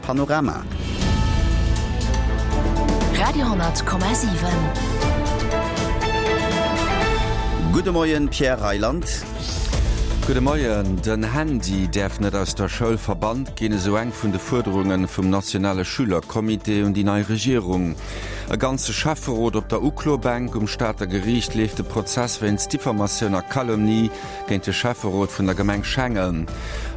Panorama. Radio,7. Gudde Moien, Pierre Reyland. Gudde Moien. Den Handy däerf net aus der Schoul verbannt ginn, esou eng vun de Fuerderunge vum nationale Schülercomité un déi nei Regierung. E ganze Schäfferot op der Uklobänk, Um Stater Geriicht leeft de Prozess wéinst Diffamatioun a Calomnie géint de Schäfferot vun der Gemeng Schengen.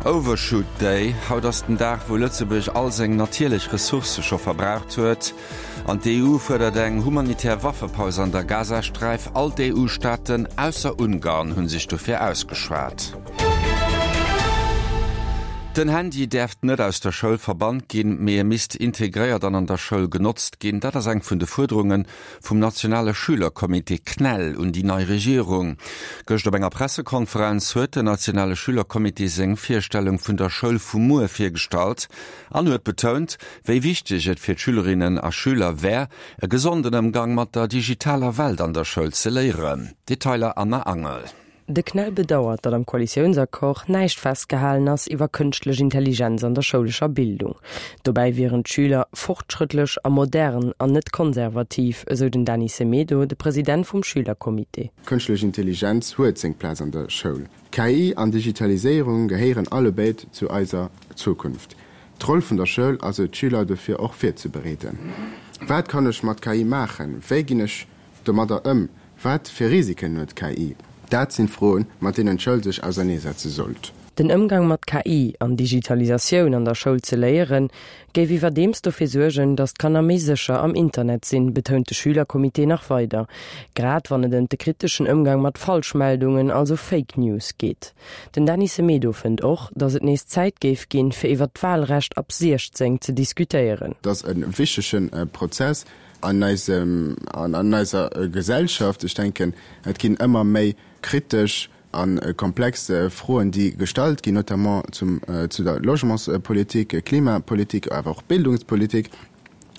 Overshoot Day, Haut ass den Dag, wou Lëtzebuerg all seng natierlech Ressourcë scho verbraucht huet. An d'EU fuerdert eng humanitär Waffepaus an der Gazasträif. All d'EU-Staaten, ausser Ungarn, hu sech dofir ausgeschwat. Den Handy däerft net aus der Schoul verbannt ginn, mee e misst integréiert an an der Schoul genotzt ginn. Dat ass eng vun de Fuerderunge vum nationale Schülercomité CNEL un déi nei Regierung. Gëscht op enger Pressekonferenz huet den nationale Schülercomité seng Virstellung vun der Schoul vu muer virgestallt an huet betount, wéi wichteg et fir d'Schülerinnen a Schüler wär, e gesonden Ëmgang mat der digitaler Welt an der Schoul ze léieren. Detailer Anna Angel. De CNEL bedauert, datt am Koalitiounsaccord näischt festgehalen ass iwwer kënschtlech Intelligenz an der schoulescher Bildung. Dobäi wieren d'Schüler fortschrëttlech a modern an net konservativ, esou den Dany Semedo, de President vum Schülercomité. Kënschtlech Intelligenz huet seng Plaz an der Schoul. KI an Digitaliséierung gehéieren allebéid zu eiser Zukunft. D'Roll vun der Schoul ass et, d'Schüler dofir och virzebereeden. Wat kann ech mat KI maachen? Wéi ginn ech domadder ëm? Wat fir Risiken huet KI? Dat sinn Froen, mat deenen d'Schoul sech auserneesetze sollt. Den Ëmgang mat KI an Digitalisatioun an der Schoul ze léieren, géif iwwerdeems dofir suergen, datt d'Kanner méi sécher am Internet sinn, betount de Schülercomité nach weider. Grad wann et ëm de kriteschen Ëmgang mat Falschmeldungen, also Fake News, geet. Den Dany Semedo fënnt och, datt et nees Zäit géif ginn, fir iwwer d'Walrecht ab 16 ze diskutéieren. Et ass e wichtege Prozess, An eisem, an eiser Gesellschaft, ech denken, et ginn ëmmer méi kritesch a komplex Froen, déi gestallt ginn, notamment zum, zu der Logementspolitik, Klimapolitik, awer och Bildungspolitik.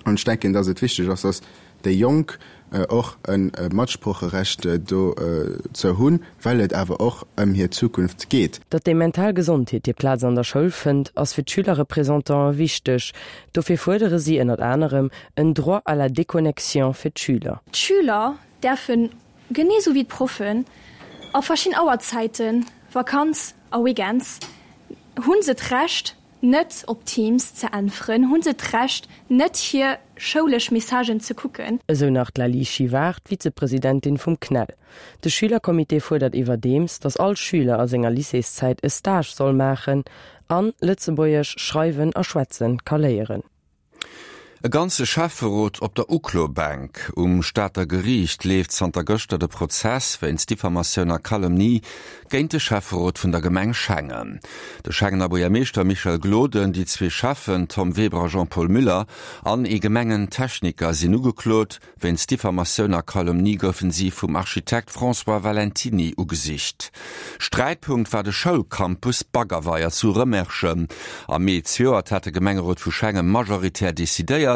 An ech denken, dass et wichteg ass, dass déi Jonk och e Matsprocherecht dozou hunn, well et awer och ëm hir Zukunft geet. Datt déi mental Gesondheet hir Plaz an der Schoul fënnt, ass fir d'Schülerrepresentantë wichteg. Dofir fuerdere si ënnert anerem en Droit à la déconnexion fir d'Schüler. D'Schüler däerfen, genee sou wéi d'Proffen, a verschidden Auerzäiten, Vakanz a Weekends, hu se d'Recht net op Teams ze äntweren, hu se d'Recht net hir schoulesch Messagen ze kucken. Esou nach d'Laly Chivard, d'Vizepresidentin vum CNEL. De Schülercomité fuerdert iwwerdeems, datt all Schüler a senger Lycéeszäit e Stage soll maachen an Lëtzebuergesch schreiwen a schwätzen ka léieren. E ganze Schäfferot op der Uklobänk. Um Stater Geriicht leeft zanter gëschter de Prozess wéinst Diffamatioun a Calomnie géint de Schäfferot vun der Gemeng Schengen. De Schengener Buergermeeschter Michel Gloden, déi zwee Schäffen Tom Weber a Jean-Paul Müller an ee Gemengen-Techniker sinn ugeklot. Wéinst Diffamatioun a Calomnie goufen si vum Architekt François Valentiny ugesicht. Sträitpunkt war de Schoulcampus Baggerweier zu Rëmerschen. Am Mee zejoert hat de Gemengerot vu Schengen majoritär decidéiert,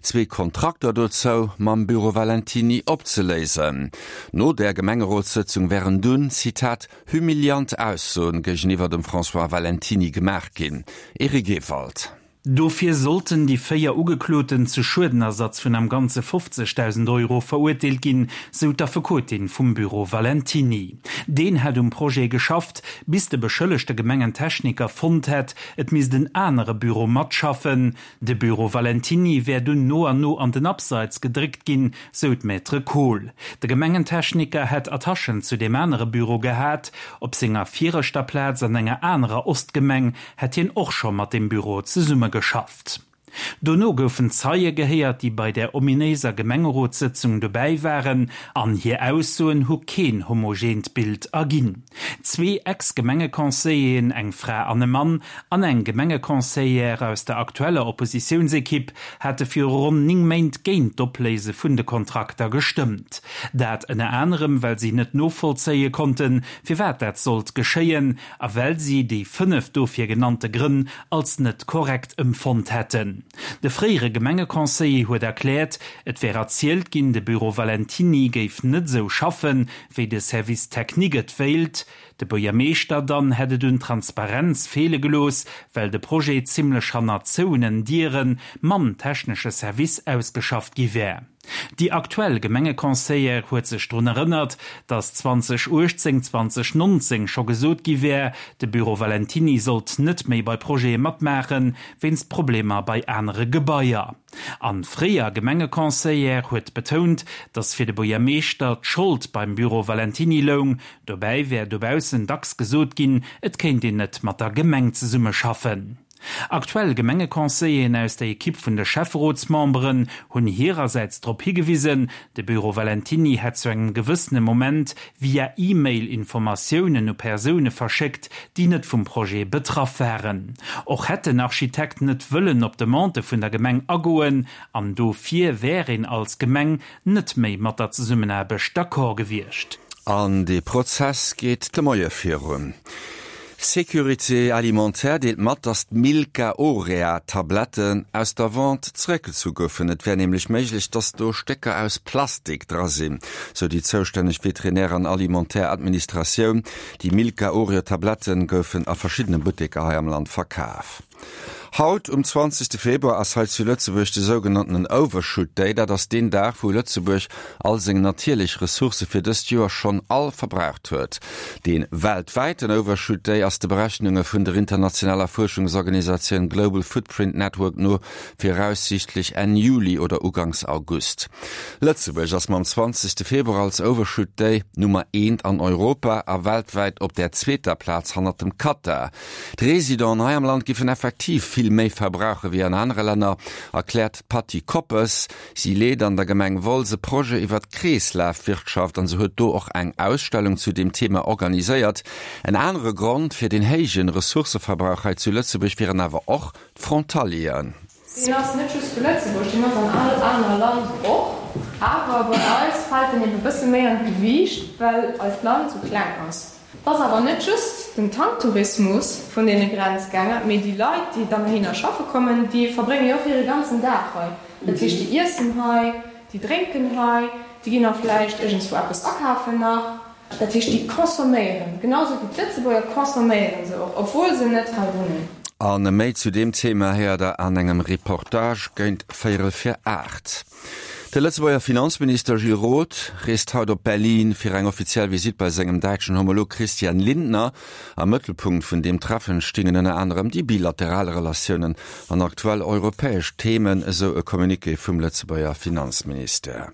zwee Kontrakter dozou mam Büro Valentiny opzeléisen. No där Gemengerotssëtzung wären dunn, Zitat, humiliant Aussoen géigeniwwer dem François Valentiny gemaach ginn. Eric Ewald. Dofir sollten déi 4 Ugekloten zu Schuedenersatz vun am Ganze 50.000 Euro verurteelt ginn, sou d'Affekotin vum Büro Valentiny. Deen hätt um Projet geschafft, bis de beschëllegte Gemengentechniker fonnt hätt, et misst en anere Büro matschaffen. De Büro Valentiny wär dunn no an no an den Abseits gedréckt ginn, sou d'Maître Kohl. De Gemengentechniker hätt Attachen zu deem anere Büro gehat. Op senger viregter Plaz an enger anerer Ostgemeng hätt hien och scho mat deem Büro zesummegeschafft. Dono goufen Zeie gehéiert, déi bei där ominéiser Gemengerotssëtzung dobäi waren, an hir Aussoen hu keen homogeent Bild erginn. Zwee Ex-Gemengeconseilleren, eng Fra an e Mann, an eng Gemengeconseillère aus der aktueller Oppositiounsekipp hate viru ronn 9 Méint géint d'Opléise vun de Kontrakter gestëmmt. Dat ënner anerem, well si net novollzéie konnten, firwat dat sollt geschéien, a well si déi 5 dofir genannte Grënn als net korrekt emfonnt hätten. sinn. De fréiere Gemengeconseiller huet erkläert, et wär erzielt ginn, de Büro Valentiny géif net esou schaffen, wéi de Service technique et wéilt. De Buergermeeschter dann hätt et un Transparenz feele gelooss, well de Projet zimmlech hanner zouenen Diere mam technesche Service ausgeschafft gi wär. Déi aktuell Gemengeconseillère huet sech drun erënnert, datt 2018, 2019 scho gesot gi wär, de Büro Valentiny sollt net méi bei Projete matmaachen, wéinst Problemer bei anere Gebaier. An fréier Gemengeconseillère huet betount, datt fir de Buergermeeschter d'Schold beim Büro Valentiny loung. Dobäi wär dobaussen dacks gesot ginn, et kéint een net mat der Gemeng zesummeschaffen. Aktuell Gemengeconseilleren aus der Ekipp vun de Schäfferotsmemberen hunn hirersäits drop higewisen, de Büro Valentiny hätt zu engem gewëssene Moment via E-Mail Informatiounen u Persoune verschéckt, déi net vum Projet betraff waren. Och hätt den Architekt net wëllen op Demandë vun der Gemeng agoen an dofir wär een als Gemeng net méi mat der Zesummenaarbecht d'accord gewiescht. An dee Prozess geet de Moie virun. Sécurité Alimentaire deelt mat, datt d'Milka Orea Tabletten aus der Vente zeréckgezu goufen. Et wär nämlech méiglech, datt do Stécker aus Plastik dra sinn, sou déi zoustänneg Veterinär an Alimentaire Administratioun. Déi Milka Oreo Tabletten goufen a verschiddene Butteker hei am Land verkaf. Haut um 20 Februar ass hei zu Lëtzebuerg de sougenanntenen Overshoot Day. Dat ass deen Dag, wou Lëtzebuerg all seng natierlech Ressourcë fir dëst Joer schonn all verbraucht huet. Dee weltwäiten Overshoot Day ass de Berechnunge vun der internationaler Fuerschungsorganisatioun Global Footprint Network no viraussiichtlech Enn Juli oder uganks August. Lëtzebuerg ass mam 20 Februar als Overshoot Day Nummer eent an Europa a weltwäit op der zweeter Plaz hannert dem Katar. D'Residenten hei am Land giffen effektiv vill méi verbrauche wéi an anere Länner, erkläert d'Patty Koppes. Si leet an der Gemeng Wolz e Projet iwwer d'Kreeslafwirtschaft an se huet do och eng Ausstellung zu deem Thema organiséiert. En anere Grond fir den héije Ressourcëverbrauch hei zu Lëtzebuerg wieren awer och d'Frontalieren. Deen ass net just zu Lëtzebuerg, deen ass an all aner Land och. Awer bei eis fält en eben e bësse méi an d'Gewiicht, well eist Land sou kleng ass. Et ass awer net just den Tanktourismus vun deene Grenzgänger, mee déi Leit, déi dann heihinner schaffe kommen, déi verbrénge jo och hire ganzen Dag hei. Dat heescht, déi iessen hei, déi drénken hei, déi ginn och vläicht iergendswou eppes akafen nach. Dat heescht, déi consomméieren, genau sou wéi d'Lëtzebuerger consomméiere se och, obwuel se net hei wunnen. A méi zu deem Thema héiert der an engem Reportage géint véierel vir 8. De Lëtzebuerger Finanzminister Gilles Roth reest haut op Berlin fir eng offiziell Visitt bei sengem däitschen Homolog Christian Lindner. Am Mëttelpunkt vun deem Treffen stingen ënner anerem déi bilateral Relatiounen an aktuell europäesch Themen, esou e Communiqué vum Lëtzebuerger Finanzministère.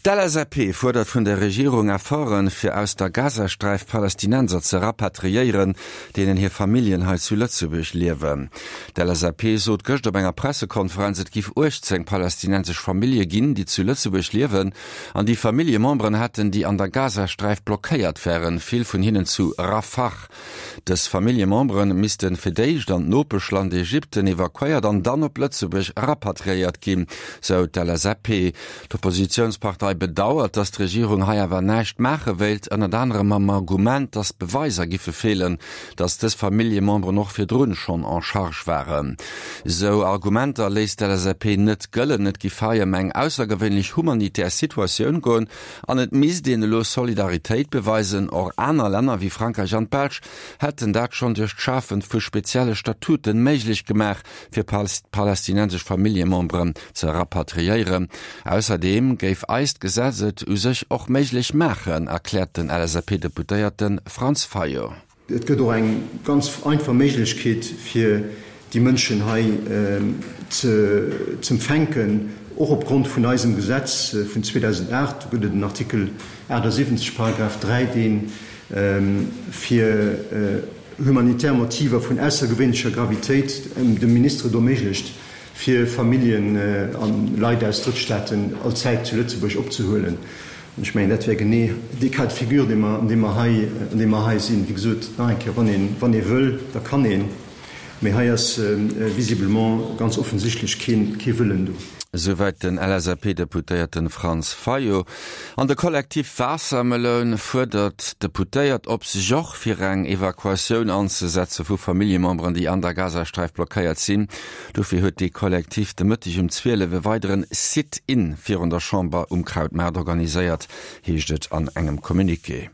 D'LSAP fuerdert vun der Regierung Efforten, fir aus der Gazasträif Palästinenser ze rapatriéieren, deenen hir Familljen hei zu Lëtzebuerg liewen. D'LSAP sot gëscht op enger Pressekonferenz, et giff 18 palästinensesch Famillje ginn, déi zu Lëtzebuerg liewen an déi Familljememberen hätten, déi an der Gazasträif blockéiert wären, vill vun hinnen zu Rafah. Dës Familljemembere misste fir d'éischt an d'Nopeschland Ägypten evakuéiert an dann op Lëtzebuerg rapatriéiert ginn, sou d'LSAP. D'Oppositiounspartei bedauert, datt d'Regierung hei awer näischt maache wéilt, ënnert anerem mam Argument, datt Beweiser giffe feelen, datt dës Familljememberen och virdrun schonn en charge waren. Sou Argumenter léisst d'LSAP net gëllen. Et giff hei ëm eng aussergewéinlech humanitär Situatioun goen An et misst een elo Solidaritéit beweisen. Och aner Länner wéi Frankräich an d'Belsch hätten dat schonn duerch d'Schafe vu spezielle Statuten méiglech gemaach, fir palästinensesch Familljememberen ze rapatriéieren. Ausserdeem géif eist Gesetz et u sech och méiglech maachen, erkläert den LSAP-Deputéierte Franz Fayot. Et gëtt och eng ganz einfach Méiglechkeet, fir déi Mënschen hei z'empfänken, och opgrond vun eisem Gesetz vun 2008. Do gëtt et en Artikel 78, Paragraph 3, dee fir humanitär Motiver vun aussergewéinlecher Gravitéit dem Minister et erméiglecht, fir Familljen a Leit aus Drëttstaaten allzäit zu Lëtzebuerg opzehuelen. An ech mengen, dat wär genee dee Cas de figure, dee mer, an deem mer hei, an deem mer hei sinn. Wéi gesot, nach eng Kéier, wann een, wann ee wëll, da kann een. Mee hei ass visiblement ganz offensichtlech kee Wëllen do. Esouwäit den LSAP-Deputéierten Franz Fayot. An de Kollektiv Waassermeloun fuerdert d'Deputéiert op, sech och fir eng Evakuatioun anzesetze vu Familljememberen, déi an der Gazasträif blockéiert sinn. Dofir huet dee Kollektiv de Mëtteg um 12 e weideren Sit-in virun der Chamber um Krautmaart organiséiert, heescht et an engem Communiqué.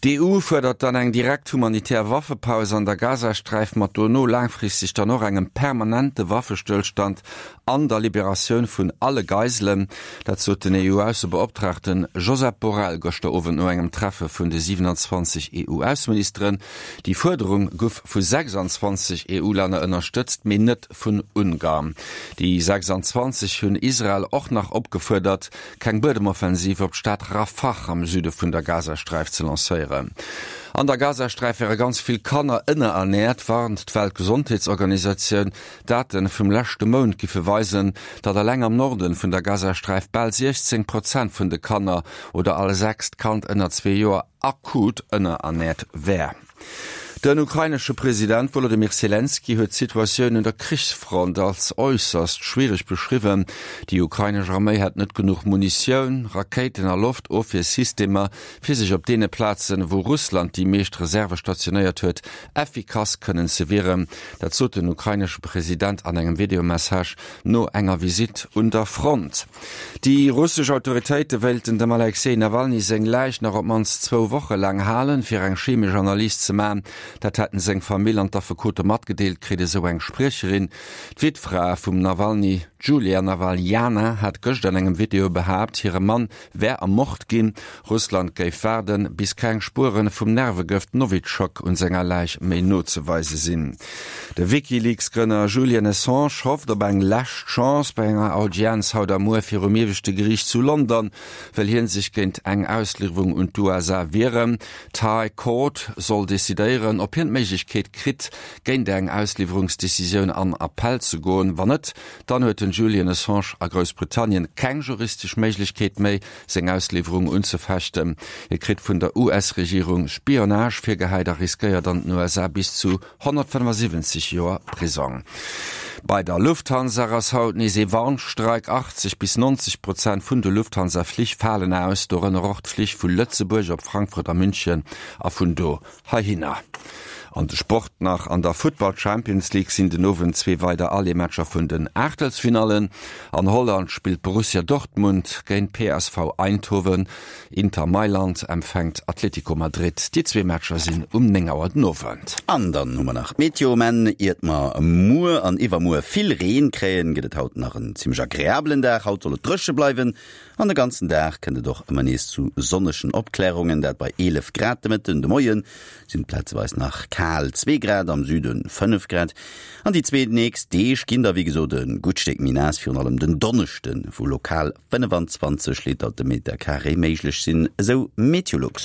D'EU fuerdert dann eng direkt humanitär Waffepaus an der Gazasträif, mat dono laangfristeg dann och engem permanente Waffestëllstand an der Liberatioun vun alle Geiselen. Dat sot den EU-Aussebeoptraagten Josep Borrell gëschter Owend no engem Treffe vun de 27 EU-Ausseministeren. Déi Fuerderung guff vu 26 EU-Länner ënnerstëtzt, mee net vun Ungarn. Déi 26 hunn Israel och nach opgefuerdert, keng Buedemoffensiv op d'Stad Rafah am Süde vun der Gazasträif ze lancéieren. An der Gazasträif wäre ganz vill Kanner ënnerernäert, warnt d'Weltgesondheetsorganisatioun. Date vum leschte Mount giffe weisen, datt eleng am Norden vun der Gazasträif bal 16 Prozent vun de Kanner oder all sechst Kand ënner zwee Joer akut ënnerernäert wär. Den ukrainesche President Wolodymyr Selenskyj huet d'Situatioun un der Krichsfront als äusserst schwiereg beschriwwen. Déi ukrainesch Arméi hätt net genuch Munitioun, Rakéiten a Loftofwiersystemer, fir sech op deene Plazen, wou Russland déi meescht Reserve stationéiert huet, effikass kënnen ze wieren. Dat sot den ukrainesche President an engem Videomessage no enger Visitt un der Front. Déi russesch Autoritéite wéilten dem Alexej Nawalny seng Läich nach op d'mannst zwou Woche laang halen, fir eng chemesch Analys ze man. Dat hätten seng Famill an d'Affekote matgedeelt kritt, esou eng Spriecherin. D'Wittfra vum Nawalny, d'Julia Nawaljana, hat gëscht an engem Video behaapt, hire Mann wär ermort ginn. Russland géif waarden, bis keng Spuere vum Nervegëft Nowitschok un senger Läich méi nozeweise sinn. De WikiLeaks-Grënner Julian Assange hofft op eng lescht Chance bei enger Audienz haut a muer virum ieweschte Geriicht zu London, wëll hien sech géint eng Ausliwwerung un d'USA wieren. D'High Court soll decidéieren, ob hien d'Méiglechkeet kritt, géint eng Ausliwwerungsdecisioun an Appell ze goen. Wann net, Dann huet den Julian Assange a Groussbritannien keng juristesch Méiglechkeet méi, seng Ausliwwerung unzefechten. Hie kritt vun der US-Regierung Spionage virgehäit a riskéiert an den USA bis zu 175 Joer Prisong. Bei der Lufthansa ass haut nees ee Warnstreik. 80 bis 90 Prozent vun de Lufthansa-Flich falen aus, dorënner och d'Flich vu Lëtzebuerg op Frankfurt a München a vun do Heihinner. An de Sport nach, An der Futtball Champions League sinn den Owend zwee weider Aller-Matcher vun den Aachtelsfinallen. An Holland spillt Borussia Dortmund géint PSV Eindhoven. Inter Mailand empfänkt Atletico Madrid. Déi zwee Matcher sinn um 9 Auer den Owend. An dann hu mer nach d'Meteo. Mä iert mer muer an iwwermuer vill Reen kréien, gëtt et haut nach en zimmlech agreabelen Dag. Haut soll et dréche bleiwen An de ganzen Dag kënnt et och ëmmer nees zu sonnegen Opklärungen, dat bei 11 Grad de Mëtten. De Moie sinn et plazeweis nach kal zwee Grad, am Süde 5 Grad. An déi zwee nächst Deeg ginn da wéi gesot e gutt Stéck méi naass, virun allem den Donneschden, wou lokal 25 Liter de Meter Carré méiglech sinn, esou Meteolux.